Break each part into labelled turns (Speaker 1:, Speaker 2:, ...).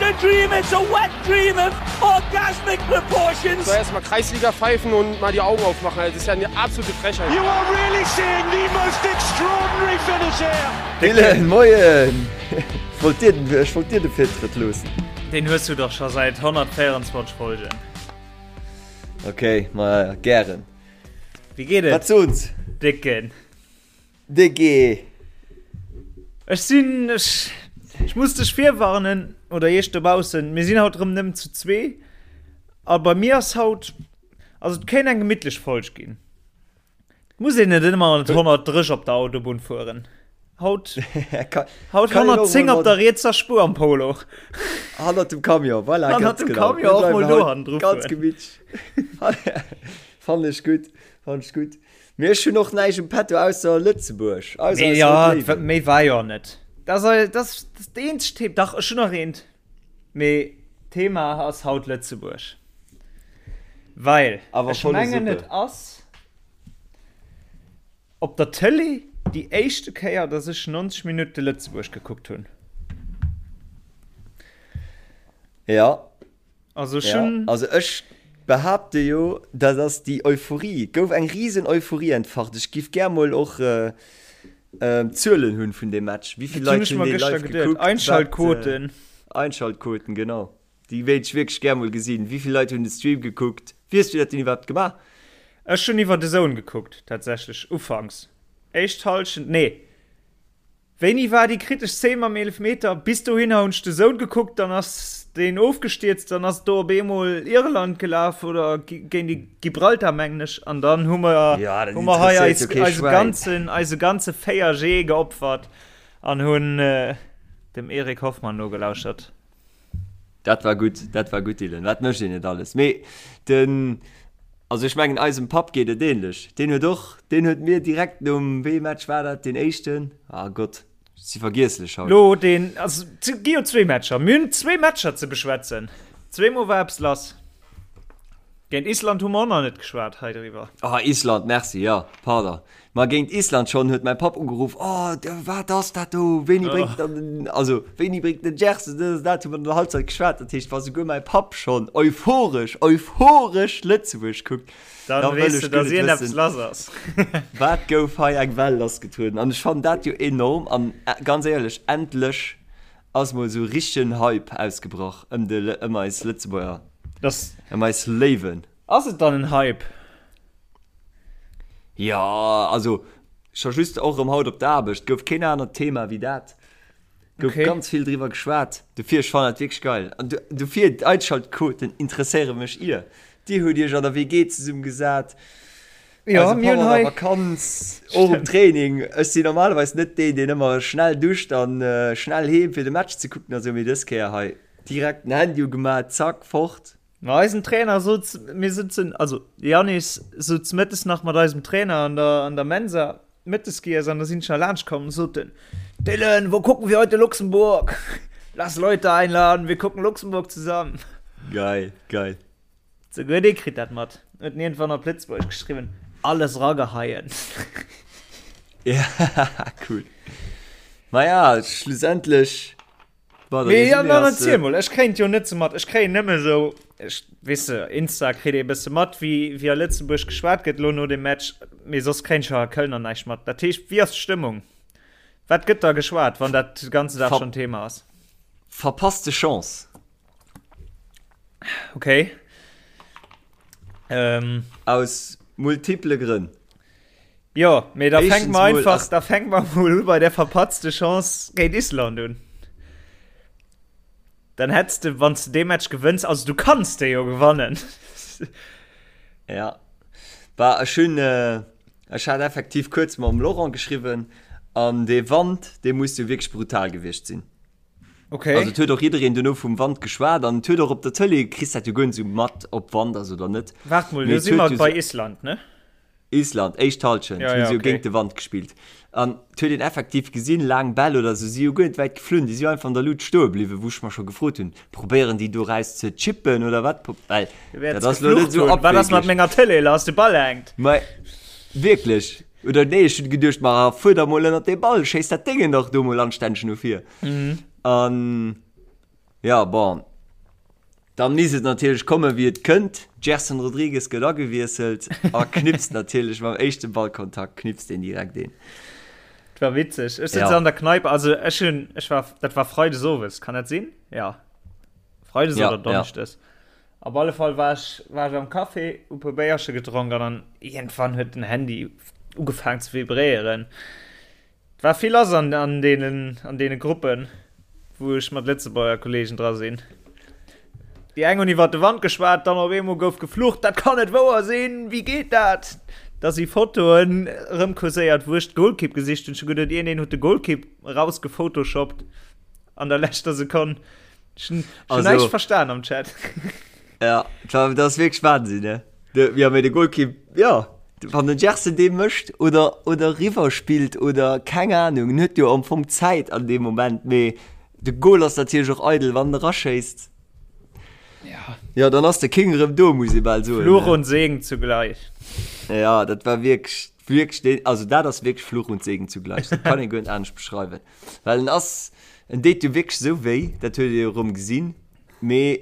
Speaker 1: a dream, it's a wet dream of orgasmic proportions.
Speaker 2: So erstmal Kreisliga pfeifen und mal die Augen aufmachen. Das ist ja eine absolute Frechheit.
Speaker 1: You are really seeing the most extraordinary finish here.
Speaker 3: Dylan, moien! Ech wollt dir den, ech wollt dir de Virtrëtt loossen.
Speaker 4: Deen hues du dach scho säit 124 Folgen.
Speaker 3: Okay, ma gären.
Speaker 4: Wéi geet et?
Speaker 3: Wat soens?
Speaker 4: Décken.
Speaker 3: Décke.
Speaker 4: Ech sinn, ech, ech muss dech virwarnen, oder iech dobaussen, mir sinn haut erëm nëmmen zu zwee. A bei mir ass haut, also et kéint eng gemittlech Folg ginn. Et muss een net ëmmer mat 130 op der Autobunn fueren. Haut, haut 110 op der rietser Spuer am Polo.
Speaker 3: Hannert dem Camion, voilà,
Speaker 4: Hannert
Speaker 3: ganz
Speaker 4: dem
Speaker 3: genau.
Speaker 4: Camion
Speaker 3: Mir
Speaker 4: och mol
Speaker 3: bleiwen
Speaker 4: do
Speaker 3: haut
Speaker 4: hannendru
Speaker 3: Ganz
Speaker 4: fueren.
Speaker 3: gemittlech. Fannen ech gutt, fannen ech gutt. Mee ech hunn och näischt um Petto ausser Lëtzebuerg, ausser
Speaker 4: Mee
Speaker 3: eis
Speaker 4: ja,
Speaker 3: rout Léiwen.
Speaker 4: méi war jo net. Dat ass, dat ass dat eenzegt Thema. Dach, ech hunn nach eent. Mee d'Thema ass haut Lëtzebuerg. Well
Speaker 3: Awer
Speaker 4: ech
Speaker 3: volle
Speaker 4: mengen,
Speaker 3: Suppe.
Speaker 4: et ass op der Tëlee déi éischte Kéier, dass ech 90 Minutte Lëtzebuerg gekuckt hunn.
Speaker 3: Ja.
Speaker 4: Also ech
Speaker 3: Ja,
Speaker 4: hunn.
Speaker 3: also ech behaapte jo, dat ass déi Euphorie, et gouf eng risen Euphorie entfacht. Ech giff gär mol och d'Zuelen hunn vun deem Match. Wéi vill
Speaker 4: Dat hunn
Speaker 3: Leit
Speaker 4: ech
Speaker 3: hunn
Speaker 4: mer
Speaker 3: dee
Speaker 4: gëschter
Speaker 3: live
Speaker 4: geduet.
Speaker 3: gekuckt? Wat,
Speaker 4: Einschaltquoten.
Speaker 3: Einschaltquoten, genau. Déi wéilt ech wierklech gär mol gesinn. Wéi vill Leit hunn de Stream gekuckt? Wéi hues du dat denn iwwerhaapt gemaach?
Speaker 4: Ech hunn iwwer DAZN gekuckt, tatsächlech, ufanks. Éischt Hallschent, nee. Wéini war déi kritesch Szene mam Eelefmeter? Bis dohinner hunn ech de Sound gekuckt, dann ass deen ofgestierzt, dann ass do op eemol Irland gelaf oder géint déi Gibraltar mengen ech an dann hu mer
Speaker 3: Ja, dat
Speaker 4: hu mer hei
Speaker 3: interesséiert
Speaker 4: eis
Speaker 3: jo kee
Speaker 4: eise
Speaker 3: Schwäin.
Speaker 4: ganzen eise ganze 4G geopfert an hunn dem Eric Hoffmann nogelauschert.
Speaker 3: Dat war gutt, dat war gutt Dylan. Wat mécht een net alles. Mee den, also ech mengen eisem Papp geet et ähnlech. Deen huet och, deen huet mir direkt nom, wéi ee Match war dat, deen éischten? Ah Gott, ech si vergiesslech haut.
Speaker 4: Lo deen, also et gi jo zwee Matcher, mir hunn zwee Matcher ze beschwätzen. Zweemol war eppes lass. Géint Island hu mer och nach net geschwat hei driwwer.
Speaker 3: Ah Island, merci, jo, pardon. Ma géint Island schonn huet mäi Papp ugeruff, Oh, wat ass dat do? Wéini bréngt dann den, also wéini bréngt den Gerson dës an dat? Hu mer an der Halbzeit geschwat. Dat heescht, wa souguer mäi Papp schonn euphoresch, euphoresch Lëtzebuerg kuckt,
Speaker 4: Dann
Speaker 3: da wëll
Speaker 4: weess
Speaker 3: ech
Speaker 4: de,
Speaker 3: guer
Speaker 4: dass
Speaker 3: net
Speaker 4: iergendeppes
Speaker 3: wëssen,
Speaker 4: lass ass.
Speaker 3: wat gouf hei eng Well lassgetrueden. An ech fannen dat jo enorm. An ganz éierlech, endlech ass mol esou richtegen Hype ausgebrach ëm de, ëm eis Lëtzebuerger,
Speaker 4: Dass.
Speaker 3: ëm eis Léiwen.
Speaker 4: Ass et dann en Hype?
Speaker 3: Jo, also scho just och erëm haut op der Aarbecht gouf keen anert Thema wéi dat. Gouf
Speaker 4: Okay.
Speaker 3: ganz vill driwwer geschwat. Dofir, ech fannen dat wierklech geil. An dofir, d'Einschaltquoten interesséiere mech ier. Dir hutt iech an der WG zesummegesat,
Speaker 4: Jo,
Speaker 3: eise
Speaker 4: mir
Speaker 3: Papp
Speaker 4: hunn
Speaker 3: an der
Speaker 4: hei.
Speaker 3: Vakanz, och um
Speaker 4: Stimmt.
Speaker 3: Training. Ech sinn normalerweis net deen, deen ëmmer schnell duscht an schnell heem fir de Match ze kucken a sou, mee dës Kéier hei direkt den Handy ugemaat, zack, fort.
Speaker 4: Ma eisen Trainer sot, mir sëtzen, also de Yannis sot mëttes nach mat eisem Trainer an der, an der Mensa mëttes giess an da sinn ech nach laanscht komm, sot en, Dylan, wo gucken wir heute Luxemburg? Lass Leute einladen, wir gucken Luxemburg zusammen.
Speaker 3: Geil, geil.
Speaker 4: Souguer dee kritt dat mat. Huet en iergendwann op Lëtzebuergesch geschriwwen, Alles rageheien.
Speaker 3: Ja, cool. Maja, schlussendlech
Speaker 4: Mee ja, dann erziel mol, ech kréien et jo net sou mat, ech kréien nëmme sou, ech, weess de, Insta kritt ee bësse mat, wéi, wéi a Lëtzebuerg geschwat gëtt elo no dem Match, mee soss kréien ech jo a Köln an näischt mat. Dat heescht, wéi ass d'Stëmmung? Wat gëtt da geschwat, wann dat de ganzen Dag schonn Thema ass?
Speaker 3: Verpasste Chance.
Speaker 4: Okay. Ähm.
Speaker 3: Aus multiple Grënn.
Speaker 4: Jo, mee da fänke mer einfach, da fänke mer mol u bei der verpatzte Chance géint Island un. Dann hättest de, wann du dee Match gewënns, also du kanns de jo gewannen.
Speaker 3: Ja. War ech hunn, ech hat effektiv kuerz mam Laurent geschriwwen an dee Wand, dee muss jo wierklech brutal gewiescht sinn.
Speaker 4: Okay.
Speaker 3: Also et huet och jiddereen duerno vum Wand geschwat an et huet och op der Tëlee, kriss dat jo guer net esou mat, ob Wand ass oder net.
Speaker 4: Waart mol,
Speaker 3: Mee
Speaker 4: do
Speaker 3: et
Speaker 4: si
Speaker 3: huet
Speaker 4: mer
Speaker 3: jo
Speaker 4: bei
Speaker 3: sou.
Speaker 4: Island, ne?
Speaker 3: Island, éischt Halschent,
Speaker 4: Ja,
Speaker 3: hu
Speaker 4: ja,
Speaker 3: se jo
Speaker 4: okay.
Speaker 3: géint de Wand gespillt. An et huet een effektiv gesinn, laang Bäll oder sou si jo guer net wäit geflunn, déi si jo einfach an der Lut stoe bliwwen, wou ech mer scho gefrot hunn, probéieren déi do raus ze chippen oder wat? Well
Speaker 4: Du wäerts
Speaker 3: dat ass lo net
Speaker 4: geflucht
Speaker 3: sou
Speaker 4: hunn, Wat ass mat
Speaker 3: abwegeg.
Speaker 4: menger Tëlee lass, de Ball hänkt.
Speaker 3: Mä wierklech, oder nee, ech hunn geduecht, ma fuer da mol ënnert dee Ball, schéiss dat Déngen dach do mol anstänneg no vir. An. Ja, bon. Dann misst et natierlech kommen, wéi et kënnt. Gerson Rodrigues gëtt agewiesselt a knipst natierlech mam éischte Ballkontakt knipst deen direkt een.
Speaker 4: Et war witzeg. Ech sëtz ja. an der Kneipe, also ech hunn, ech war, dat war Freides owes, kann dat sinn? Ja. Freides ja, oder Donneschdes. Ja. Op alle Fall war ech, war ech am Café, hu puer Béierche gedronk an dann iergendwann huet den Handy ugefaangen ze vibréieren. Et war vill lass an, an deenen, an deene Gruppen, wou ech mat Lëtzebuerger Kollegen dra sinn. Déi eng hunn iwwer de Wand geschwat, dann op eemol gouf geflucht, dat kann net wouer sinn, wéi geet dat? Da si Fotoen erëmkurséiert, wou ech d'Golkipp gesicht hunn. Ech hu geduet, iergendeen huet de Golkipp erausgephotoshoppt an der leschter Sekonn. Ech hunn näischt verstan am Chat.
Speaker 3: Ja, dat ass wierklech Wahnsinn, ne? De, ja, mee de Golkipp, ja, wann den Gerson dee mécht oder, oder riwwer spillt oder keng Ahnung, en huet jo am Fong Zäit an deem Moment, mee de Gol ass natierlech och eidel, wann en eraschéisst.
Speaker 4: Ja.
Speaker 3: Ja, dann ass de King erëm do, muss ee bal soen.
Speaker 4: Fluch und Segen zugleich.
Speaker 3: Ja, dat war wierklech, wierklech deen, also dat ass wierklech Fluch und Segen zugleich, dat kann ee guer net anescht beschreiwen, well en ass, en deet jo wierklech esou wéi, dat huet ee jo erëm gesinn, mee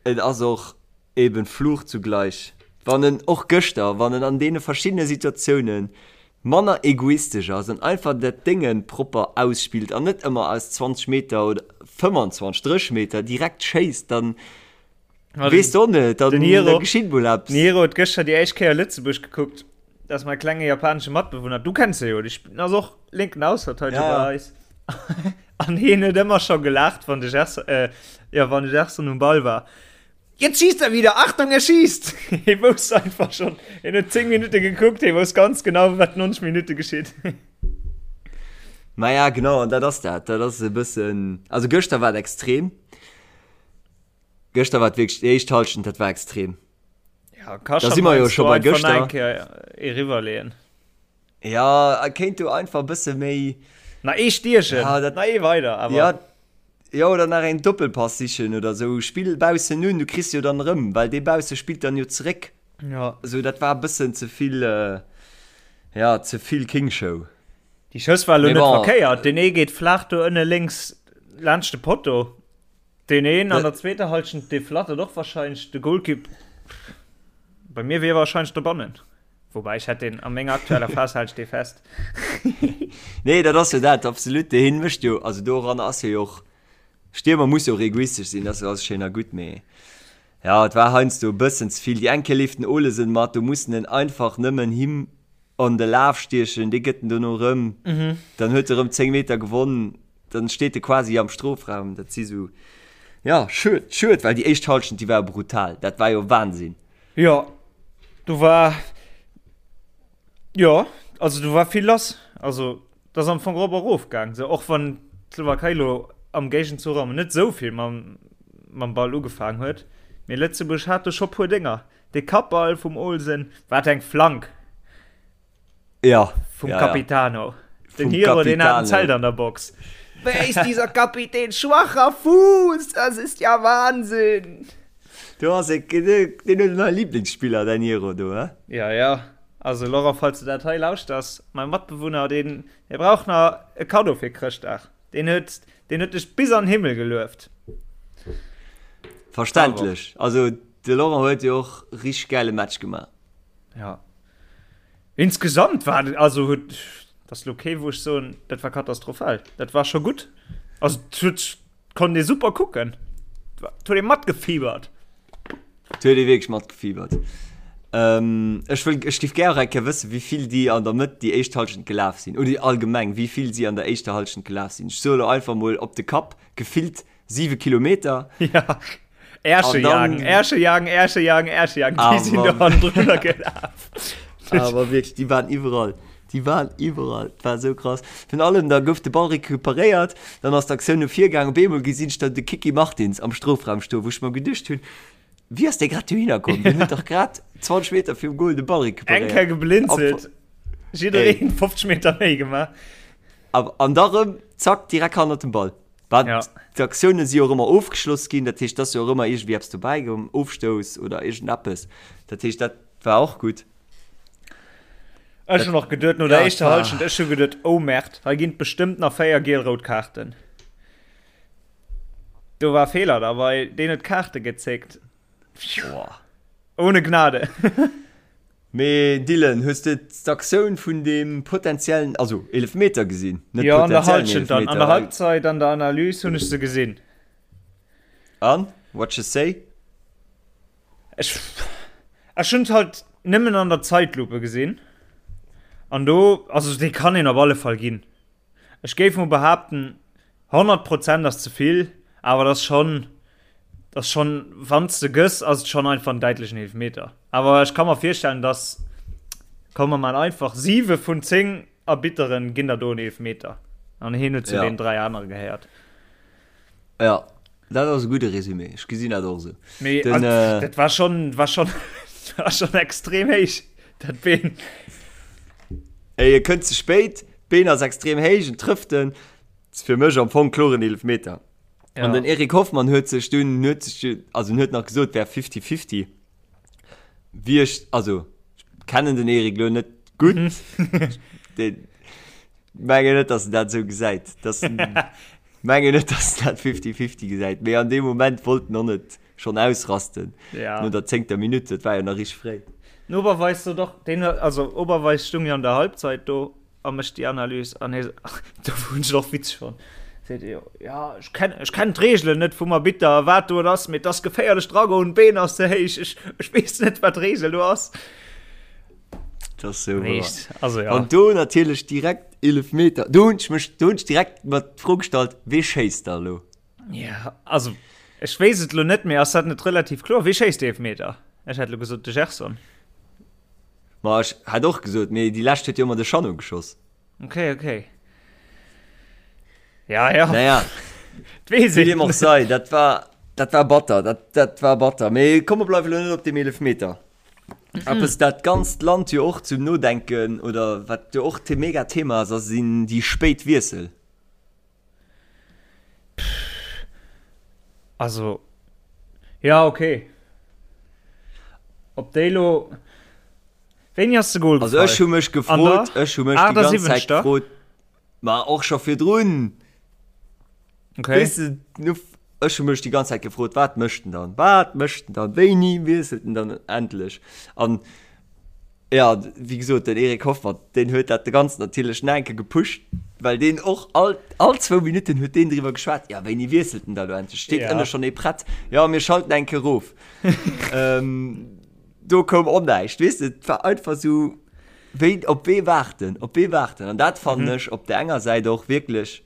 Speaker 3: et ass och Eben Fluch zugleich. Wann en, och gëschter, wann en an deene verschiddene Situatiounen manner egoistesch ass an einfach dat Dénge propper ausspillt an net ëmmer aus 20 Meter oder 25, 30 Meter direkt schéisst, dann weess de och net, dann da geschitt mol eppes.
Speaker 4: Den Hiro huet gëschter déi éischt Kéier Lëtzebuerg gekuckt. Dat ass mäi klenge japanesche Matbewunner. Du kenns e jo, dee ass och lénken Ausverteideger bei eis. An hien huet ëmmer scho gelaacht, wann de Gerson, jo, wann de Gerson um Ball war. Jetzt schießt er wieder, Achtung, er schießt! Hie wousst einfach schon, hien huet 10 Minutte gekuckt, hie wousst ganz genau, wat 90 Minutte geschitt.
Speaker 3: Maja, genau, an dat ass dat. Dat ass e bëssen, also gëschter war et extrem. Gëschter war et wierklech, déi éischt Hallschent, dat war extrem.
Speaker 4: Ja, ka
Speaker 3: Da si mer jo scho bei gëschter.
Speaker 4: Eng Kéier eriwwerleeën.
Speaker 3: Ja, e kéint do einfach e bësse méi.
Speaker 4: Na ee stiechen,
Speaker 3: ja, dat,
Speaker 4: na ee weider, awer.
Speaker 3: Ja, ja, oder nach een Doppelpass sichen oder sou. Spill baussen un, du kriss jo dann erëm, well dee bausse spillt dann jo zeréck.
Speaker 4: Ja.
Speaker 3: Sou, dat war e bëssen ze vill, ja, ze vill King-Show.
Speaker 4: Déi Schëss war elo net verkéiert. Deen ee geet flaach do ënne lénks laanscht de Potto. Deen een an der zweeter Halschent, dee flattert och warscheinlech de Golkipp. Bei mir wier warscheinlech dobannen. Wobei ech hätt deen a menger aktueller Phas halen ech dee fest.
Speaker 3: Nee, dat ass jo dat, absolut. Dee hien mécht jo, also doran ass hie jo och, Stiermer muss jo och egoistesch sinn, dat ass schéin a gutt, mee ja, et war heiansdo e bëssen ze vill. Déi eng Kéier leeft den Olesen mat, do muss en einfach nëmmen him an de Laf stiechen, dee gëtt en dono erëm, dann huet e erëm 10 Meter gewonn, dann steet e quasi am Strofraum. Dat si sou, ja, schued, schued, well déi éischt Hallschent, déi war brutal, dat war jo Wahnsinn.
Speaker 4: Jo, do war, jo, also do war vill lass. Also dat ass am Fong erop a rof gaang, sou och wann d'Slowakei lo am Géigenzuch am net esou vill mam, mam Ball ugefaang huet. Mee Lëtzebuerg hat do scho puer Dénger. De Kappball vum Olsen, wat eng Flank!
Speaker 3: Ja.
Speaker 4: Vum
Speaker 3: ja,
Speaker 4: Capitano.
Speaker 3: Ja.
Speaker 4: Den Hiro, den hat en Zelt an der Box. Wer ist dieser Kapitän? Schwacher Fuß, das ist ja Wahnsinn!
Speaker 3: Du ass e, den huet en neie Lieblingsspiller, däin Hiro do, he?
Speaker 4: Ja, ja. Also Laurent, falls du dat hei lauschters, mäi Matbewunner, deen, dee brauch nach e Kaddo fir Chrëschtdag. Deen huet, deen huet dech bis an den Himmel gelueft.
Speaker 3: Verständlech. Also de Laurent huet jo och richteg gäile Match gemaach.
Speaker 4: Ja. Insgesamt war et, also huet, dat ass lo kee wou ech soen, dat war katastrophal. Dat war scho gutt. Also et huet, konnt ee super kucken. Et huet ee matgefiebert.
Speaker 3: Et huet ee wierklech matgefiebert. Ähm, ech wëll, ech géif gär och eng Kéier wëssen, wéi vill déi an der Mëtt déi éischt Hallschent gelaf sinn. Oder allgemeng, wéi vill si an der éischter Hallschent gelaf sinn. Ech soe lo einfach mol op de Kapp gefillt 7 Kilometer.
Speaker 4: Ja. Ärsche jagen, Ärsche jagen, Ärsche jagen, Ärsche jagen. Déi sinn do hannendrunner gelaf.
Speaker 3: Awer wierklech, déi waren iwwerall. Déi waren iwwerall. Dat war esou krass. Virun allem, da gouf de Ball recuperéiert, dann ass d'Aktioun no vir gaangen. Op eemol gesinn ech dann de Kiki Martins am Strofraum stoen, wou ech mer geduecht hunn, Wéi ass dee grad dohinner komm? Deen huet dach grad 20 Meter virum Goal de Ball
Speaker 4: Eng
Speaker 3: recuperéiert.
Speaker 4: Kéier geblinzelt, jiddereen 50 Meter méi gemaach.
Speaker 3: An da rëm, zack, direkt hannert dem Ball. Wat
Speaker 4: Ja.
Speaker 3: d'Aktioune si jo och ëmmer ofgeschloss ginn, dat heescht, et ass jo och ëmmer iergendwéi eppes dobäi komm, Ofstouss oder iergendeppes. Dat heescht, dat war och gutt.
Speaker 4: Ech hunn och geduet no der
Speaker 3: Ja,
Speaker 4: éischter
Speaker 3: war-
Speaker 4: Hallschent, ech hu geduet, oh Merd, hei ginn et bestëmmt nach 4 giel-rout Kaarten. Do war Feeler dabei, deen huet Kaarte gezéckt. Boah. Ohne Gnade.
Speaker 3: Mee Dylan, hues de d'Aktioun vun deem potenziellen, also Eelefmeter gesinn?
Speaker 4: Net jo, an der Halschent dann, an der Halbzeit, an der Analys hunn ech se gesinn.
Speaker 3: An? What you say?
Speaker 4: Ech, ech hunn et halt nëmmen an der Zeitlupe gesinn. An do, also dee kann een op alle Fall ginn. Ech géif mol behaapten, 100 Prozent ass ze vill, awer et ass schonn, et ass schonn, wann s de gëss, ass et schonn einfach en däitlechen Eelefmeter. Awer ech ka mer virstellen, dass, komm mer man einfach, 7 vun 10 Arbitteren ginn der do en Eelefmeter. An hien huet zu
Speaker 3: Ja.
Speaker 4: den 3 anere gehéiert.
Speaker 3: Ja, dat ass e gudde Resumé. Ech gesinn dat och esou.
Speaker 4: Mee
Speaker 3: Den,
Speaker 4: also,
Speaker 3: äh,
Speaker 4: dat war schonn, war schonn, war schonn extrem héich, dat Been.
Speaker 3: Ey, e kënnt ze spéit, d'Been ass extrem héich, en trëfft en. Ass fir mech am Fong kloren Eelefmeter.
Speaker 4: Ja.
Speaker 3: An den Eric Hoffmann huet sech dunn, huet sech, also en huet nach gesot, wär 50-50. Wie ech, also ech kennen den Eric lo net gutt. Den, mengen net, dass en dat esou gesäit. Dass en, mengen net, dass en dat 50-50 gesäit. Mee an deem Moment wollt en och net schonn ausrasten.
Speaker 4: Ja.
Speaker 3: No der zéngter Minutt, dat war jo nach richteg fréi.
Speaker 4: Den Oberweis sot och, deen huet, also Oberweis stung jo an der Halbzeit do a mécht déi Analys an hie, do hunn ech et och witzeg fonnt, seet e jo, ja ech kenn, ech kennen d'Reegelen net vum Arbitter, wat do et ass, mee et ass geféierlech dragoen, d'Been ass ze héich, ech, ech weess net wat d'Reegel do ass.
Speaker 3: Dat ass sou wouer.
Speaker 4: Also ja.
Speaker 3: An do natierlech direkt Eelefmeter. Do hunn ech mech, do hunn ech direkt mer d'Fro gestallt, wee schéisst da elo?
Speaker 4: Ja, also ech weess et lo net, mee ass dat net relativ kloer? Wee schéisst de Eelefmeter? Ech hätt lo gesot de Gerson.
Speaker 3: Ma ech hätt och gesot, mee déi lescht huet jo ëmmer de Chanot geschoss.
Speaker 4: Okay, okay. Ja, ja.
Speaker 3: Naja,
Speaker 4: Weess
Speaker 3: wéi deem
Speaker 4: een.
Speaker 3: och sei, dat war, dat war batter, dat, dat war batter. Mee komm, mer bleiwe lo net op deem Eelefmeter. Eppes dat ganzt Land jo och zum Nodenken oder wat jo och mega Thema ass, ass sinn déi spéit Wiessel.
Speaker 4: Also, ja, okay. Ob déi lo. Wéini ass de Goal
Speaker 3: Also ech hu mech gefrot, ech hu mech déi ganz Zäit gefrot, ma och scho virdrun.
Speaker 4: Okay.
Speaker 3: Weess de, nu, ech hu mech déi ganz Zäit gefrot, wat mécht en dann? Wat mécht en dann? Wéini wiesselt en dann endlech? An ja, wéi gesot, den Eric Hoffmann, deen huet dat de ganzen natierlech nach eng Kéier gepusht, well deen och all, all zwou Minutten huet deen driwwer geschwat, ja, wéini wiesselt en da lo endlech? Steet
Speaker 4: Ja.
Speaker 3: ënne schonn ee prett? Ja, mir schalten eng Kéier erof. ähm, do koum och näischt, weess de, et war einfach sou, wéi, op wee waarten, op wee waarten? An dat fannen ech op der enger Säit och wierklech,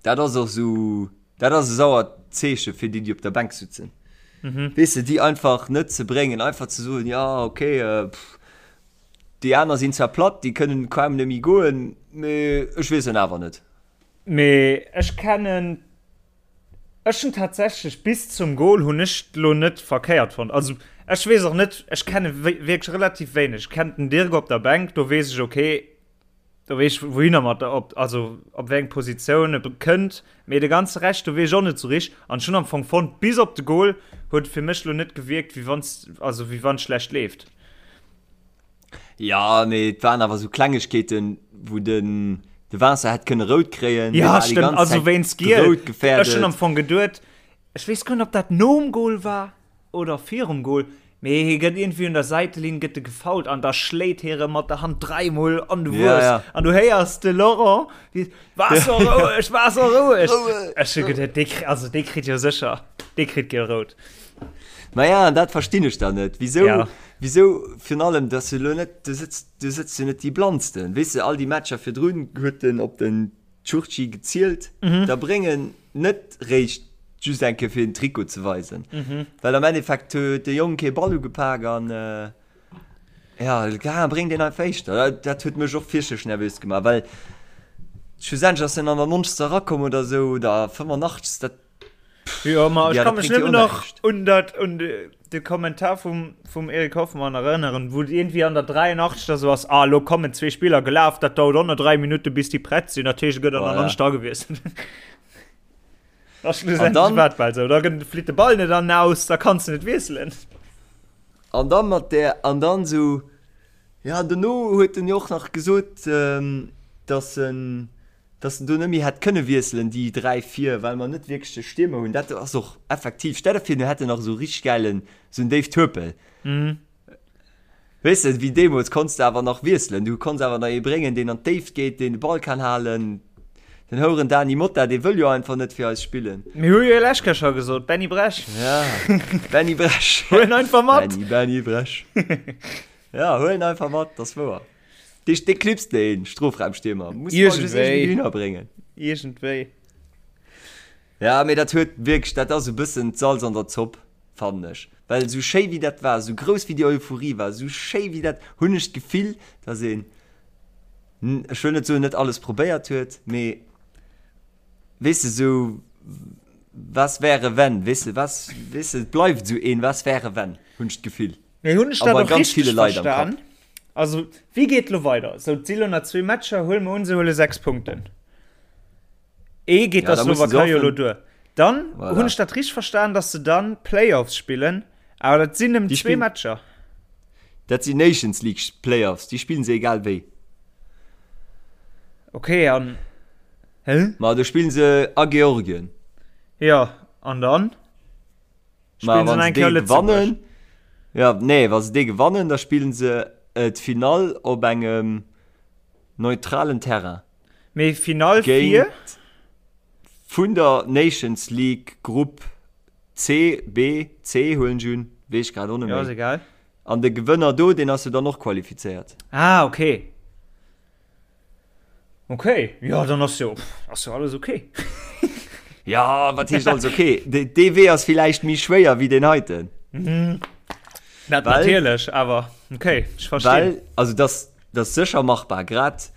Speaker 3: Dat ass och sou, dat ass e sauert Zeeche fir déi, déi op der Bänk sutzen. Mhm. Weess de, déi einfach net ze bréngen, einfach ze soen, ja okay, äh, pff, déi aner sinn zwar platt, déi kënnen kaum net méi goen, mee ech weess en awer net.
Speaker 4: Mee ech kennen, ech hunn tatsächlech bis zum Goal hunn ech lo net verkéiert fonnt. Also ech weess och net, ech kenne wierklech relativ wéineg. Ech kennen den Dirk op der Bänk, do weess ech, okay, Do weess ech wouhinner mat der, op, also op wéi eng Positioun e kënnt, mee de ganze Rescht do weess ech och net sou richteg. An ech hunn am Fong fonnt, bis op de Goal huet et fir mech lo net gewierkt wéi wann also wéi wann et schlecht leeft.
Speaker 3: Ja, mee et waren awer sou Klengegkeeten, wou den de Vincent hätt kënne rout kréien.
Speaker 4: Ja, stëmmt, also wéinst Giel. Ech hunn am Fong geduet, ech weess guer net ob dat nom Goal war. Oder virum Goal, mee hie gëtt iergendwéi un der Säitelinn gëtt e gefoult an da schléit hie rëm mat der Hand dräimol an de Wues.
Speaker 3: Ja, ja.
Speaker 4: An du héiers de Laurent, wéi, War so roueg, war so roueg! Ech hu geduet, dee kri-, also dee kritt jo sécher, dee kritt giel-rout.
Speaker 3: Maja, an dat verstinn ech dann net. Wisou,
Speaker 4: Ja.
Speaker 3: wisou virun allem, dass du elo net, du sëtz, du sëtz jo net déi Blannsten. Weess de, all déi Matcher virdrun huet en op den Tschurtschi gezielt, da bréng en net réischt just eng Kéier fir den Trikot ze weisen. Well am Endeffekt huet de Jong kee Ball ugepak an ja, ga bréng deen einfach éischter. Dat, dat huet mech och fierchterlech nervös gemaach, well schlussendlech ass en an der 90. erakomm oder esou oder 85. Dat
Speaker 4: Jo, ma ech
Speaker 3: Ja,
Speaker 4: kann
Speaker 3: dat
Speaker 4: mech
Speaker 3: bréngt jo
Speaker 4: nëmmen nach
Speaker 3: näischt.
Speaker 4: un dat un de, de Kommentar vum, vum Eric Hoffmann erënneren, wou et iergendwéi an der 83. esou ass, ah, lo kommen zwee Spiller gelaf, dat dauert och nach 3 Minutte bis déi prett sinn, dat heescht, et gëtt an der
Speaker 3: Voilà.
Speaker 4: 90. agewiesselt. Da
Speaker 3: An
Speaker 4: schlussendlech
Speaker 3: dann-
Speaker 4: war et bal esou, da gëtt, flitt de Ball net an den Aus, da kanns de net wiesselen.
Speaker 3: An dann mat där, an dann esou, ja, dono huet en jo och nach gesot, ähm, dass en. Dass en do net méi hätt kënne wiesselen, déi 3 vir, well mer net wierklech de Stiermer hunn. Dat ass och effektiv. Stell der vir, mir hätten nach esou richteg gäilen, esou en Dave Turpel. Weess de, wéi deemools konns de awer nach wiesselen. Du konns awer nach ee bréngen, deen an d'Déift geet, deen de Ball kann halen. Den houeren Dany Motta, dee wëll jo einfach net fir eis spillen.
Speaker 4: Mir hu jo lech Kéier scho gesot, Benny Bresch.
Speaker 3: Ja, Benny Bresch.
Speaker 4: Huel en einfach mat.
Speaker 3: Benny, Benny Bresch. Ja, huel en einfach mat, dat ass wouer. Dee, dee knipst deen Strofraumstiermer. Muss man just
Speaker 4: Iergendwéi.
Speaker 3: irgendwie hinnerbréngen.
Speaker 4: Iergendwéi.
Speaker 3: Ja, mee dat huet wierklech, dat ass e bëssen d'Salz an der Zopp, fannen ech. Well esou schéi wéi dat war, esou grouss wéi déi Euphorie war, esou schéi wéi dat, hunn ech d'Gefill, dass een, ech wëll net soen, net alles probéiert huet, mee weess de, esou was wäre wenn, weess de, was, weess de, et bleift esou een was wäre wenn, hunn ech d'Gefill.
Speaker 4: Mee hunn ech
Speaker 3: A
Speaker 4: dat
Speaker 3: bei
Speaker 4: och
Speaker 3: ganz ville
Speaker 4: richteg
Speaker 3: Leit am
Speaker 4: verstan?
Speaker 3: Kapp.
Speaker 4: Also, wéi geet elo weider? Sou, et si lo nach zwee Matcher, huele mer un, se huele 6 Punkten. Ee geet
Speaker 3: Ja,
Speaker 4: der
Speaker 3: da musse se
Speaker 4: Slowakei jo elo
Speaker 3: hoffen.
Speaker 4: duer. Dann
Speaker 3: Voilà.
Speaker 4: hunn ech dat richteg verstan, datt se dann Playoffs spillen, awer dat sinn nëmmen
Speaker 3: Déi
Speaker 4: zwee
Speaker 3: spillen-
Speaker 4: Matcher.
Speaker 3: Dat sinn Nations League Playoffs, déi spillen se egal wéi.
Speaker 4: Okay, an hä?
Speaker 3: Ma do spillen se a Georgien.
Speaker 4: Ja, an dann?
Speaker 3: Ma
Speaker 4: Spillen se
Speaker 3: wann
Speaker 4: nach
Speaker 3: se
Speaker 4: eng Kéier
Speaker 3: dee
Speaker 4: Lëtzebuerg?
Speaker 3: gewannen, ja, nee, wa se dee gewannen, da spillen se d'Finall op engem neutralen Terrain.
Speaker 4: Mee Finall fir?
Speaker 3: Géint vun der Nations League Grupp C, B, C huelen ech un, weess ech grad och net
Speaker 4: Ja, ass
Speaker 3: méi.
Speaker 4: egal.
Speaker 3: An de Gewënner do, deen ass jo dann och qualifizéiert.
Speaker 4: Ah, okay. Okay, ja, dann ass jo, ass jo alles okay.
Speaker 3: Ja, wat heescht alles okay? De, dee Wee ass villäicht méi schwéier wéi deen heiten.
Speaker 4: Dat
Speaker 3: Well-
Speaker 4: natierlech, awer okay, ech verstinn.
Speaker 3: Well, also das, das sécher machbar, grad,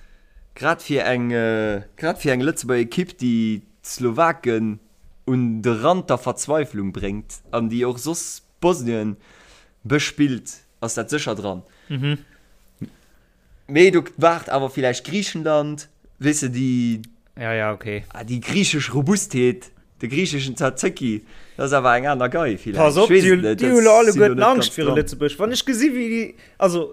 Speaker 3: grad fir eng, äh, grad fir eng Lëtzebuerger Ekipp, déi d'Slowaken un de Rand der Verzweiflung bréngt an déi och soss Bosnien bespillt, ass dat sécher dran.
Speaker 4: Mhm.
Speaker 3: Mee do waart awer villäicht Griichenland, weess de, déi,
Speaker 4: Ja, ja, okay.
Speaker 3: ah, déi griichesch Robustheet, de griicheschen Tzatziki, dat ass awer eng aner Gei villäicht.
Speaker 4: Pass op,
Speaker 3: Ech weess
Speaker 4: déi
Speaker 3: et net,
Speaker 4: déi
Speaker 3: dat
Speaker 4: hu lo
Speaker 3: sinn
Speaker 4: alleguerten
Speaker 3: elo net
Speaker 4: Angscht
Speaker 3: ganz
Speaker 4: viru
Speaker 3: dran.
Speaker 4: Lëtzebuerg. Wann ech gesi wéi déi, also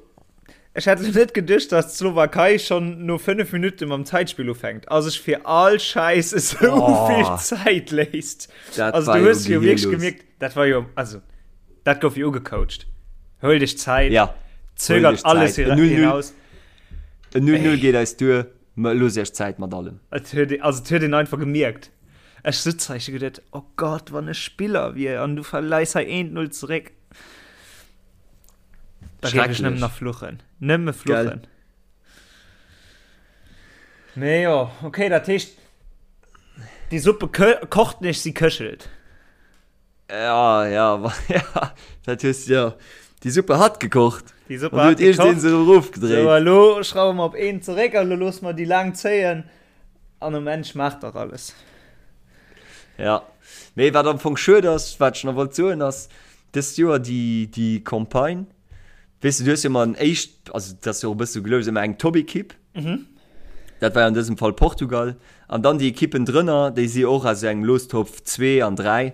Speaker 4: ech hätt lo net geduecht, datt d'Slowakei schonn no 5 Minutte mam Zäitspill ufänkt a sech fir all Schäiss esou
Speaker 3: Oh.
Speaker 4: vill Zäit léisst.
Speaker 3: Dat
Speaker 4: Also
Speaker 3: war
Speaker 4: du
Speaker 3: jo
Speaker 4: hues jo wierklech
Speaker 3: gehirlos.
Speaker 4: gemierkt, dat war jo, also dat gouf jo ugecoacht. Huel dech Zäit,
Speaker 3: Ja,
Speaker 4: zögert
Speaker 3: dech
Speaker 4: alles
Speaker 3: Zäit.
Speaker 4: hira-
Speaker 3: 0-0.
Speaker 4: hinaus.
Speaker 3: En 0-0 geet eis duer, mä looss iech Zäit mat allem.
Speaker 4: Et huet ee, also et huet een einfach gemierkt. Ech sutz hei, ech hu geduet, oh Gott, wann ech Spiller wier an du verleis hei 1-0 zeréck. Da géif ech nëmmen
Speaker 3: Schrecklech.
Speaker 4: nach fluchen. Nëmme fluchen. Mee jo, okay, dat heescht, déi Suppe kocht nicht, sie köchelt.
Speaker 3: Ja, ja, ja, dat hues ja. Déi Suppe hat gekocht.
Speaker 4: Déi Suppe
Speaker 3: An
Speaker 4: hat
Speaker 3: du huet iergendeen
Speaker 4: gekocht.
Speaker 3: se erofgedréit.
Speaker 4: So, elo schrauwe mer op een zeréck a lo loosse mer déi laang zéien an um Enn schmaacht dach alles.
Speaker 3: Ja, mee wat am Fong schued ass, wat ech nach wollt soen, ass dëst Joer déi, déi Campagne, weess de, du hues jo ëmmer en éischt, also dat ass jo och e bësse sou gelous, ëmmer eng Top-Ekipp. Dat war jo an dësem Fall Portugal. An dann déi Ekippen drënner, déi si och aus engem Lostopf 2 an 3.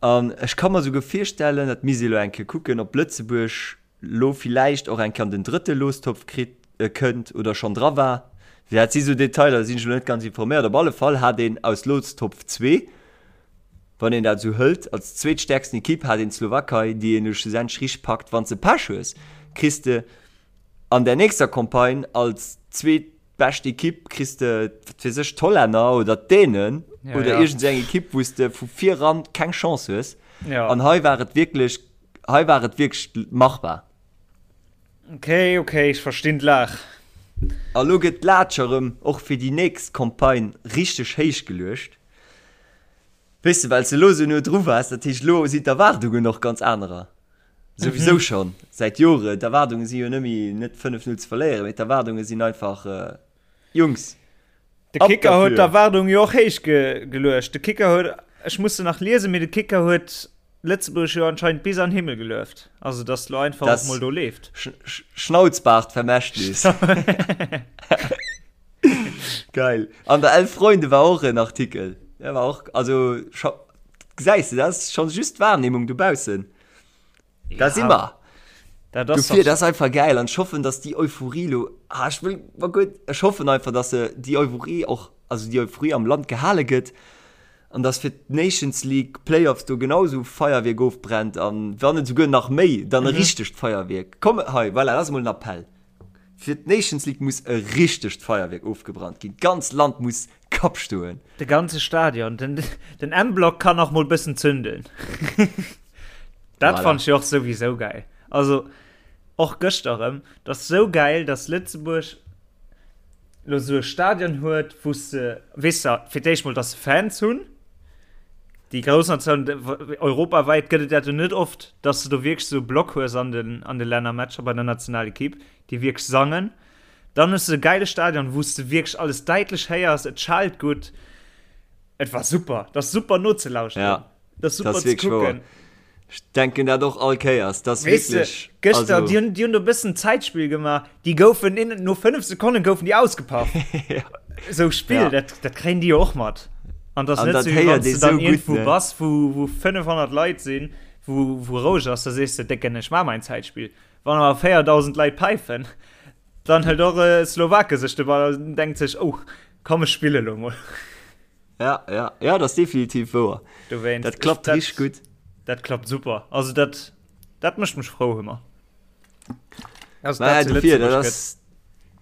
Speaker 3: An ech ka mer souguer virstellen, dat misst ee lo eng Kéier kucken, ob Lëtzebuerg lo villäicht och eng Kéier an den drëtte Lostopf kritt, kënnt oder schonn dra war. Dat si sou Detailer, da sinn ech lo net ganz informéiert. Op alle Fall hat een aus Lostopf 2, wann een dat esou hëlt, als zweetstäerksten Ekipp hat een d'Slowakei, déi een lo schlussendlech richteg packt. Wann s de Pech hues, kriss de An der nächster Campagne als zweetbescht Ekipp kriss de, wat weess ech, d'Hollänner oder d'Dänen
Speaker 4: Ja,
Speaker 3: oder
Speaker 4: ja.
Speaker 3: iergend esou eng Ekipp, wou s de vu viran keng Chance hues.
Speaker 4: Ja.
Speaker 3: An hei war et wierklech, hei war et wierklech machbar.
Speaker 4: Okay, okay, ech verstinn d'Laach.
Speaker 3: A lo gëtt d'Laatsch erëm och fir déi nächst Campagne richteg héich geluecht. Weess de, well s de elo esou no dru waars, dat heescht, elo sinn d'Erwaardungen och ganz anerer. Souwisou schonn säit Joren. D'Erwaardunge si jo net méi net 5, 0 ze verléieren, mee d'Erwaardunge sinn einfach, Jungs,
Speaker 4: De
Speaker 3: ab
Speaker 4: Kicker huet
Speaker 3: derfür!
Speaker 4: d'Erwaardung jo och héich geluecht. De Kicker huet, ech muss se nach liesen, mee de Kicker huet Lëtzebuerg jo anscheinend bis an Himmel gelueft. Also datt lo einfach och
Speaker 3: Das
Speaker 4: mol do leeft.
Speaker 3: Schnauzbaart-Vermächtnis. Geil. An der Elf Freunde war och en Artikel. Der war och, also scho, gesäis de, dat ass schonn just d'Wahrnehmung dobaussen. Da si mer.
Speaker 4: Dat ass
Speaker 3: Dofir, dat ass einfach geil an ech hoffen, dass déi Euphorie lo, ah, ech wëll, ma gutt, ech hoffen einfach, dass se déi Euphorie och. also déi Euphorie am Land gehale gëtt an dass fir d'Nations League Playoffs do genau esou Feierwierk ofbrennt an wann net esouguer nach méi, dann e richtegt Feierwierk. Komm hei, voilà, dat ass emol en Appell. Fir d'Nations League muss e richtegt Feierwierk ofgebrannt ginn. D'ganz Land muss Kapp stoen.
Speaker 4: De ganze Stadion, den, den M-Block kann och mol bëssen zünden. Dat voilà. fand ech och souwisou geil. Also och gëschter erëm, dat ass sou geil, dass Lëtzebuerg lo sou e Stadion huet, wou se, weess de, fir d'éischt mol, dass se Fans hunn. Déi grouss Natioun, europawäit gëtt et dat jo net oft, dass de do wierklech sou e Block hues an den, an de Lännermatcher bei der Nationalekipp, déi wierklech sangen. Dann hues de e geile Stadion, wou s de wierklech alles däitlech héiers, et schallt gutt. Et war super, dat ass super nozelauschteren.
Speaker 3: Ja,
Speaker 4: dat ass super ze kucken.
Speaker 3: Ech denken dat och all Kéiers, dat ass wierklech.
Speaker 4: Gëschter, also... déi hunn, déi hunn do e bëssen Zäitspill gemaach, déi goufen in, no 5 Sekonne goufen déi ausgepaff. ja. Sou Spill, ja. dat, dat kréien déi jo och mat. An dat ass net sou, wéi wann s de dann iergendwou ne? bass, wou, wou 500 Leit sinn, wou, wou roueg ass, da sees de, Décken, ech maach mäin Zäitspill. Wann awer 4.000 Leit päifen, dann hëlt och e Slowake sech de Ball an denkt sech, oh, komm ech spille lo mol.
Speaker 3: Ja, ja, ja, dat ass definitiv wouer.
Speaker 4: Dowéinst,
Speaker 3: Dat klappt
Speaker 4: dat,
Speaker 3: richteg gutt.
Speaker 4: Dat klappt super. Also dat, dat mécht mech frou ëmmer.
Speaker 3: Also, dat zu dofir, dat ass,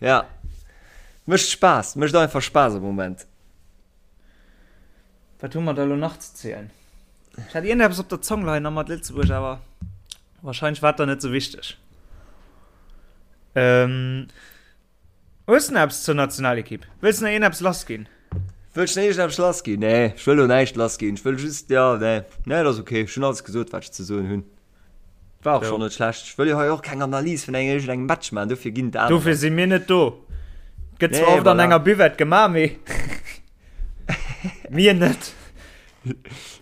Speaker 3: ja, mécht Spaass, mécht einfach Spaass am Moment.
Speaker 4: Wat hu mer da lo nach ze zielen? Ech hat iergendeppes op der Zong leien a mat Lëtzebuerg, awer Wahrscheinlech war et dann net sou wichteg. Ähm, hues du nach eppes zur Nationalekipp? Wëlls du nach iergendeppes lass ginn?
Speaker 3: Wëll ech nach iergendeppes lass ginn? Nee, ech wëll elo näischt lass ginn. Ech wëll just, ja, nee, nee, dat ass ok. Ech hunn alles gesot, wat ech ze soen hunn. War och schonn net schlecht. Ech wëll jo hei och keng Analys vun engem iergendengem Match maachen, dofir ginn et anerer.
Speaker 4: Dofir si mir net do. Gëtt zwar oft an enger Buvette gemaach, mee mir net.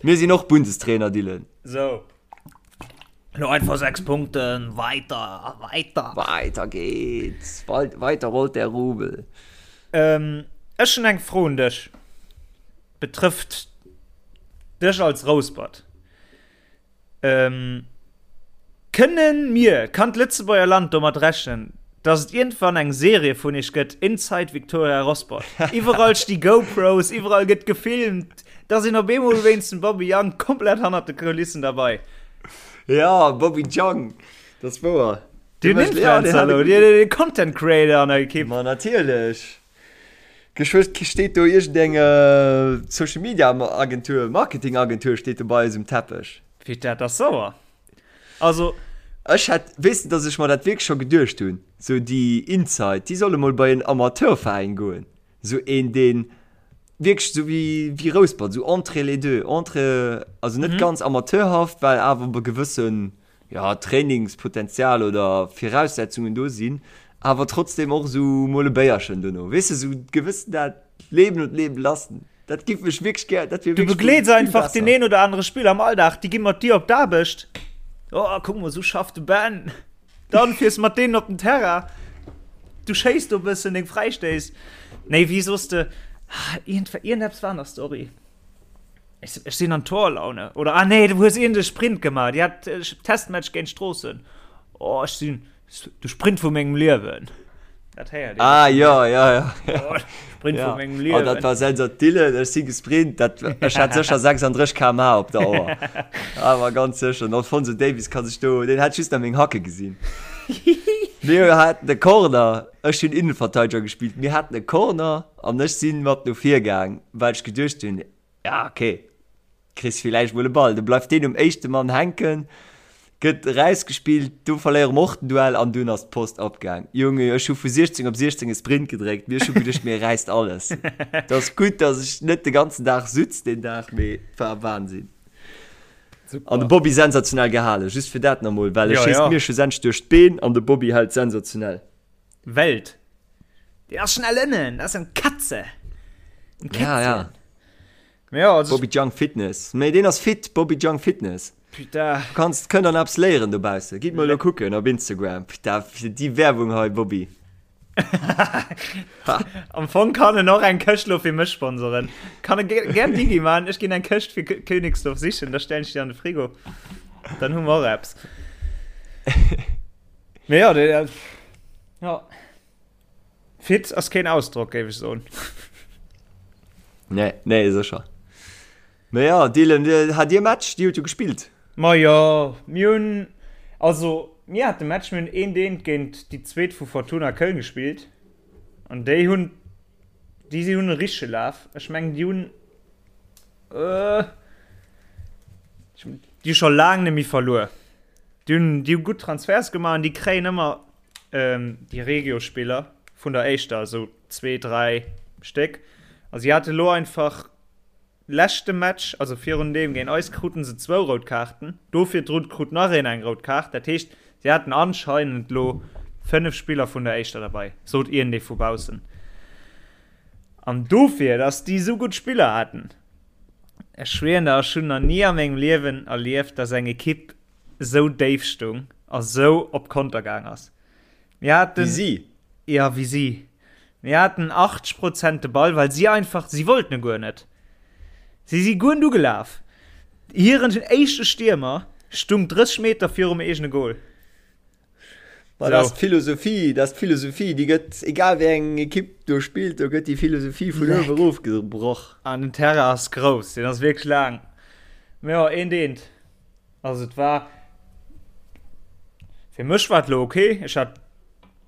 Speaker 3: Mir sinn och Bundestrainer, Dylan.
Speaker 4: Sou. Lo einfach 6 Punkten, weiter, weiter.
Speaker 3: Weiter geht's, weiter rollt der Rubel.
Speaker 4: Ähm, ech hunn eng Fro un dech, betrëfft dech als Rouspert. Ähm, kënnen mir, kann d'Lëtzebuerger Land domat rechnen, dass et iergendwann eng Serie vun iech gëtt, Inside Victoria Rosport? Iwwerall sti GoPros, iwwerall gëtt gefilmt. Da sinn op eemol wéinst dem Bobby Jang komplett hannert de Kulissen derbei.
Speaker 3: Ja, Bobby Jang, dat ass wouer.
Speaker 4: Den Influencer elo, den Content Creator an der Ekipp.
Speaker 3: Ma natierlech. Geschwë steet do iergendeng Social Media Agentur, Marketing Agentur steet do bei eis um Teppech.
Speaker 4: Fir dat ass sauer. Also.
Speaker 3: Ech hätt, weess de, datt ech mer dat wierklech scho geduecht hunn, sou déi Inside, déi solle mol bei en Amateurveräin goen. Sou een deen wierklech sou wéi wéi Rouspert, sou entre les deux, entre, also net ganz amateurhaft, well awer e gewëssen, jo, Trainingspotenzial oder Viraussetzungen do sinn, awer trotzdem och sou mol e Béierchen dono, weess de, sou gewëssen dat Leben und leben lassen. Dat giff ech wierklech gär, dat wier
Speaker 4: Du
Speaker 3: wierklech
Speaker 4: begleets
Speaker 3: vill
Speaker 4: einfach
Speaker 3: besser.
Speaker 4: deen een oder anere Spiller am Alldag, déi gi mat dir op d'Aarbecht. Oh, kuck mol, sou schafft de Ben. Dann fiers mat deenen op den Terrain. Du schéiss do bëssen deng Fräistéiss. Nee, wéi soss de, iergendeppes war an der Story. Ech, ech sinn an Torlaune. Oder, ah nee, du hues iergend e Sprint gemaach. Dir hat Testmatch géint Stroossen. Oh, ech sinn De Sprint vu mengem Liewen.
Speaker 3: Dat héiert een. Ah, ja, ja, ja. Oh, Sprint ja. vu mengem Liewen. Oh, dat war sensationell. Ech si gesprint. Dat, ech hat sécher 36 km/h op der Auer. Awer ganz sécher. Den Alphonso Davies kann sech do, deen hat just nach meng Hacke gesinn. Mir haten e Corner. Ech hunn Innenverteidiger gespillt. Mir haten e Corner an ech sinn mat no vir gaang, well ech geduecht hunn, ja, okay. Kriss villäicht mol e Ball, du bleift deen um éischte Mann hänken, gëtt erausgespillt, du verléiere mer och den Duell an dunn ass d'Post abgaang. Junge, ech hu vu 16 op 16 e Sprint gedréckt, mee ech hu geduecht, mir räisst alles. Et ass gutt, datt ech net de ganzen Dag sutz deen Dag, mee et war Wahnsinn. An de Bobby sensationell gehalen, just fir dat nach mol, well e schéisst mir schlussendlech duerch d'Been an de Bobby hält sensationell.
Speaker 4: Welt. Deen ass schnell ënnen, dat ass eng Katze.
Speaker 3: Eng Kätzchen. Ja, ja. Ja, also Bobby Jung Fitness. Mee deen ass fit, Bobby Jung Fitness.
Speaker 4: Putain.
Speaker 3: Du kanns, kënnt an eppes léieren dobausse. Gitt mol elo kucken op Instagram. Putain, fir déi Werbung hei, Bobby.
Speaker 4: Am Fong kann en och eng Këscht lo fir mech sponsoren. Kann e gär Digi man, ech ginn eng Këscht fir Königsdorf sichen, da stellen ech déi an de Frigo. Dann hu mer och eppes. Mee ja, dee, ja. Fit ass keen Ausdrock, géif ech soen.
Speaker 3: Nee, nee, sécher. Mä jo, Dylan, hat Dir Match? Dir hutt jo gespillt.
Speaker 4: Ma jo, mir hunn, also mir hate Match, mir hunn eent eent géint déi zweet vu Fortuna Köln gespillt an déi hunn, déi si hunn e richtege Laf. Ech mengen déi hunn, déi hu scho laang net méi verluer. Déi hunn, déi hu gutt Transferts gemaach an déi kréien ëmmer déi Regio-Spiller vun der éischter, esou zwee, dräi Stéck. A si hate lo einfach leschte Match, also virun deem géint eis, kruten se zwou rout Kaarten. Do virdrun krut nach een eng rout Kaart. Dat heescht, si haten anscheinend lo 5 Spiller vun der éischter derbei, sot iergendee vu baussen. An dofir, dass déi esou gutt Spiller haten, ech schwieren der, ech hunn nach ni a mengem Liewen erlieft, dass eng Ekipp esou déif stung a sou op Konter gaang ass. Mir haten,
Speaker 3: Wéi si?
Speaker 4: Ja, wéi si. Mir haten 80 Prozent de Ball, well si einfach, si wollten e guer net. Si si guer net ugelaf. Hiren éischte Stiermer stung 30 Meter virum eegene Gol.
Speaker 3: Ma dat ass d'Philosophie, dat ass d'Philosophie, déi gëtt, egal wéi eng Ekipp do spillt, do gëtt déi Philosophie vun uewe erof gebroch.
Speaker 4: An den Terrain ass grouss, deen ass wierklech laang. Mä jo, eent eent. Also et war, fir mech war et lo ok, ech hat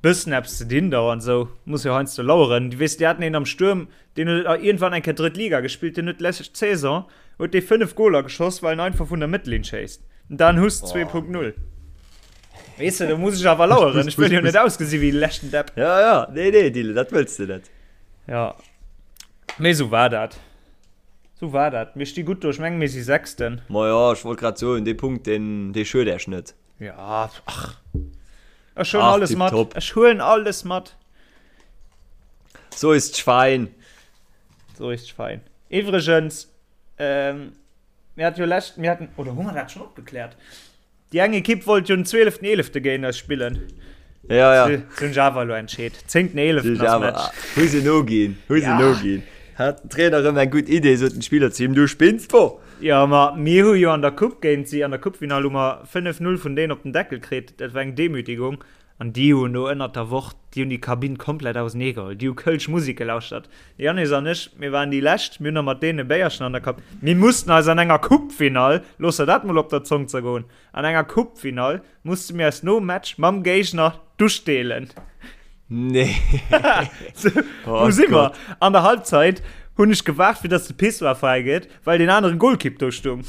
Speaker 4: bëssen eppes ze dinn do an esou, muss jo heiansdo laueren. Du weess, déi haten een am Stuerm, deen huet iergendwann eng Kéier drëtt Liga gespillt, deen huet d'lescht Saison huet dee 5 Goler geschoss, well en einfach vun der Mëttellinn schéisst. Dan Huss 2.0. Weess de, do muss ech awer laueren, ech wëll jo net ausgesi wéi de leschten Depp.
Speaker 3: Ja, ja, nee, nee, Dylan, dat wëlls de net.
Speaker 4: Ja, mee esou war dat. Sou war dat. Mir sti gutt do. Ech mengen, mir si Sechsten.
Speaker 3: Ma jo, ech wollt grad soen, dee Punkt, deen, dee schued Äech net.
Speaker 4: Ja, ach. Ech huelen
Speaker 3: Ach,
Speaker 4: alles mat.
Speaker 3: tipptopp.
Speaker 4: Ech huelen alles mat.
Speaker 3: So ist d'Schwein.
Speaker 4: So ist d'Schwein. Iwwregens, ähm, mir hat jo lescht, mir haten, oder hu mer dat schonn opgekläert? Déi eng Ekipp wollt jo den 12.11. géint eis spillen.
Speaker 3: Ja, ja.
Speaker 4: Se hunn sech awer elo entscheet. 10.11. ass Match.
Speaker 3: Hu se noginn, hu se
Speaker 4: Ja.
Speaker 3: noginn. Hat den Trainer erëm eng gutt Idee, sot den Spiller zu him, du spinns wo?
Speaker 4: Jo, ma mir hu jo an der Coupe géint si, an der Coupefinall hu mer 5-0 vun deenen op den Deckel kritt. Dat war eng Demütigung. An déi hunn do ënnert der Woch, déi hunn déi Kabinn komplett auseneegeholl. Déi hu kölsch Musek gelauschtert. De Yannis an ech, mir waren déi Lescht, mir hunn nach mat deenen e Béierchen an der Kab. Mir mussten eis an enger Coupefinall, looss der dat mol op der Zong zergoen, an enger Coupefinall musste mir eis nom Match mam Géigner d'Dusch deelen.
Speaker 3: Nee.
Speaker 4: Wou si mer? An der Halbzeit hunn ech gewaart, fir dass de Pissoir fräi gëtt, well deen anere Golkipp do stung.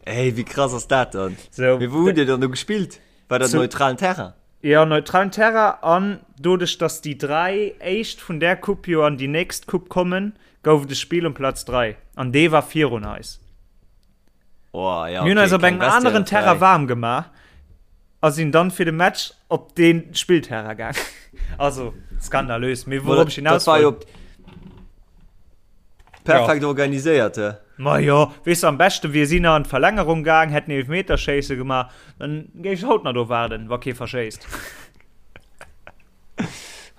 Speaker 3: Ey, wéi krass ass dat dann?
Speaker 4: Sou.
Speaker 3: Mee wou hutt Dir dann do gespillt? War dat neutralen Terrain?
Speaker 4: Jo, neutralen Terrain. An doduerch, datt déi 3 éischt vun där Coupe jo an déi nächst Coupe kommen, gouf et e Spill um Platz 3. An dee war virun eis.
Speaker 3: Oh, ja,
Speaker 4: Mir hunn
Speaker 3: okay,
Speaker 4: eis op
Speaker 3: keng
Speaker 4: engem aneren
Speaker 3: Vestiaire
Speaker 4: Terrain
Speaker 3: frei.
Speaker 4: waarm gemaach a sinn dann fir de Match op dee Spillterrain gaang. Also, skandalös. Mee wourop ech
Speaker 3: Dat
Speaker 4: hinaus
Speaker 3: war jo
Speaker 4: wollt.
Speaker 3: perfekt organiséiert, he?
Speaker 4: Ma jo, weess de, am beschte wier si nach an d'Verlängerung gaang, hätten Eelefmeterschéisse gemaach, dann géif ech haut nach do waarden, wa kee verschéisst.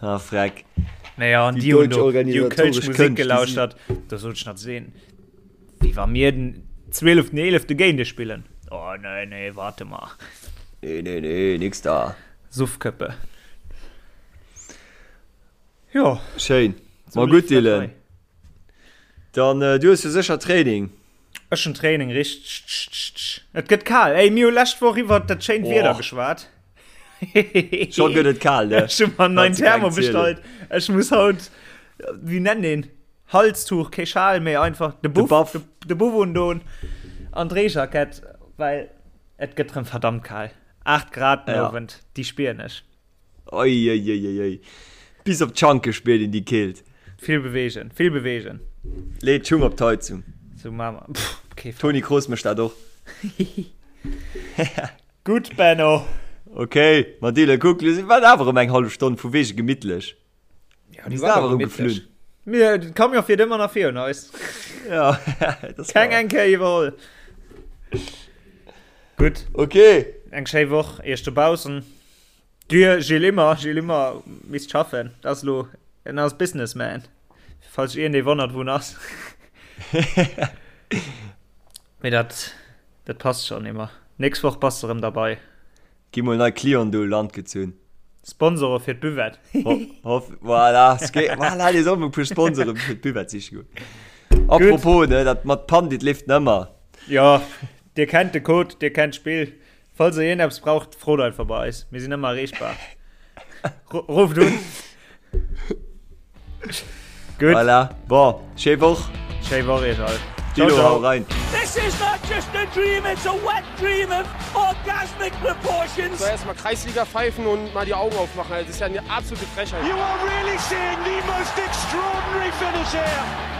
Speaker 3: Ah, freck.
Speaker 4: Naja, an
Speaker 3: Déi
Speaker 4: déi hunn
Speaker 3: deutsch
Speaker 4: do, déi hu kölsch
Speaker 3: organisatoresch
Speaker 4: Musek
Speaker 3: Kënscht, déi si.
Speaker 4: gelauschtert. Do sot ech nach zu deenen, wéi wa mir den 12.11. géint iech spillen. Oh, nee, nee, warte mal.
Speaker 3: Nee, nee, nee, nix da.
Speaker 4: Suffköppe. Jo.
Speaker 3: Schéin. Ma gutt, Dylan. Dann, du hues jo sécher Training.
Speaker 4: Ech hunn Training, richteg. Et gëtt kal. Ey, mir hu lescht Woch iwwert dat schéint Wieder geschwat.
Speaker 3: Scho gëtt et kal, ne?
Speaker 4: Ech hu mer en neien Thermo bestallt. Ech muss haut, wéi nennt een, Halstuch, kee Schal méi, einfach de Buff, de Buff undoen an d'Reejackett, well et gëtt rëm verdammt kal. 8 Grad den Owend, déi spieren ech.
Speaker 3: Uiuiuiui. Bis op d'Schanke spiert een déi Keelt.
Speaker 4: Vill bewegen, vill bewegen.
Speaker 3: Lee d'Schung op d'Heizung.
Speaker 4: Sou maache mer. Pff, kee Fall.
Speaker 3: Toni Kroos mécht dat och.
Speaker 4: Gutt, Benno.
Speaker 3: Ok, ma Dylan, kuck, lo si mer awer erëm eng hallef Stonn vu wege gemittlech.
Speaker 4: Ja, déi war awer gemütlech. Mir, den Camion fiert ëmmer nach virun eis.
Speaker 3: Ja, das
Speaker 4: Keng eng Kéier iwwerholl. Gutt.
Speaker 3: Ok.
Speaker 4: Eng schéi Woch iech dobaussen. Dir Gilles Immer, Gilles Immer misst schaffen. Dat ass elo, en ass Businessman. Falls sech iergendee wonnert, wou en ass. Mee dat, dat passt schonn, Immer. Nächst Woch bass de erëm derbei.
Speaker 3: Gi mol nei Clienten do u Land gezunn.
Speaker 4: Sponsore fir d'Buvette.
Speaker 3: Hoff, voilà, voilà, dir sollt mol e puer Sponsore fir d'Buvette siche goen. Apropos, ne, dat mat Pandit leeft nëmmer.
Speaker 4: Jo, dir kennt de Code, dir kennt d'Spill. Falls der iergendeppes braucht, frot einfach bei eis. Mir sinn ëmmer erreechbar. Rufft un.
Speaker 3: Gutt. Voilà, bon, schéi Woch.
Speaker 4: Schéi Woch iech all.
Speaker 3: Ciao, ciao. Hau rein. This is not just a dream, it's a wet dream of orgasmic proportions. So, erstmal Kreisliga pfeifen und mal die Augen aufmachen. Das ist ja eine absolute Frechheit. You are really seeing the most extraordinary finish here.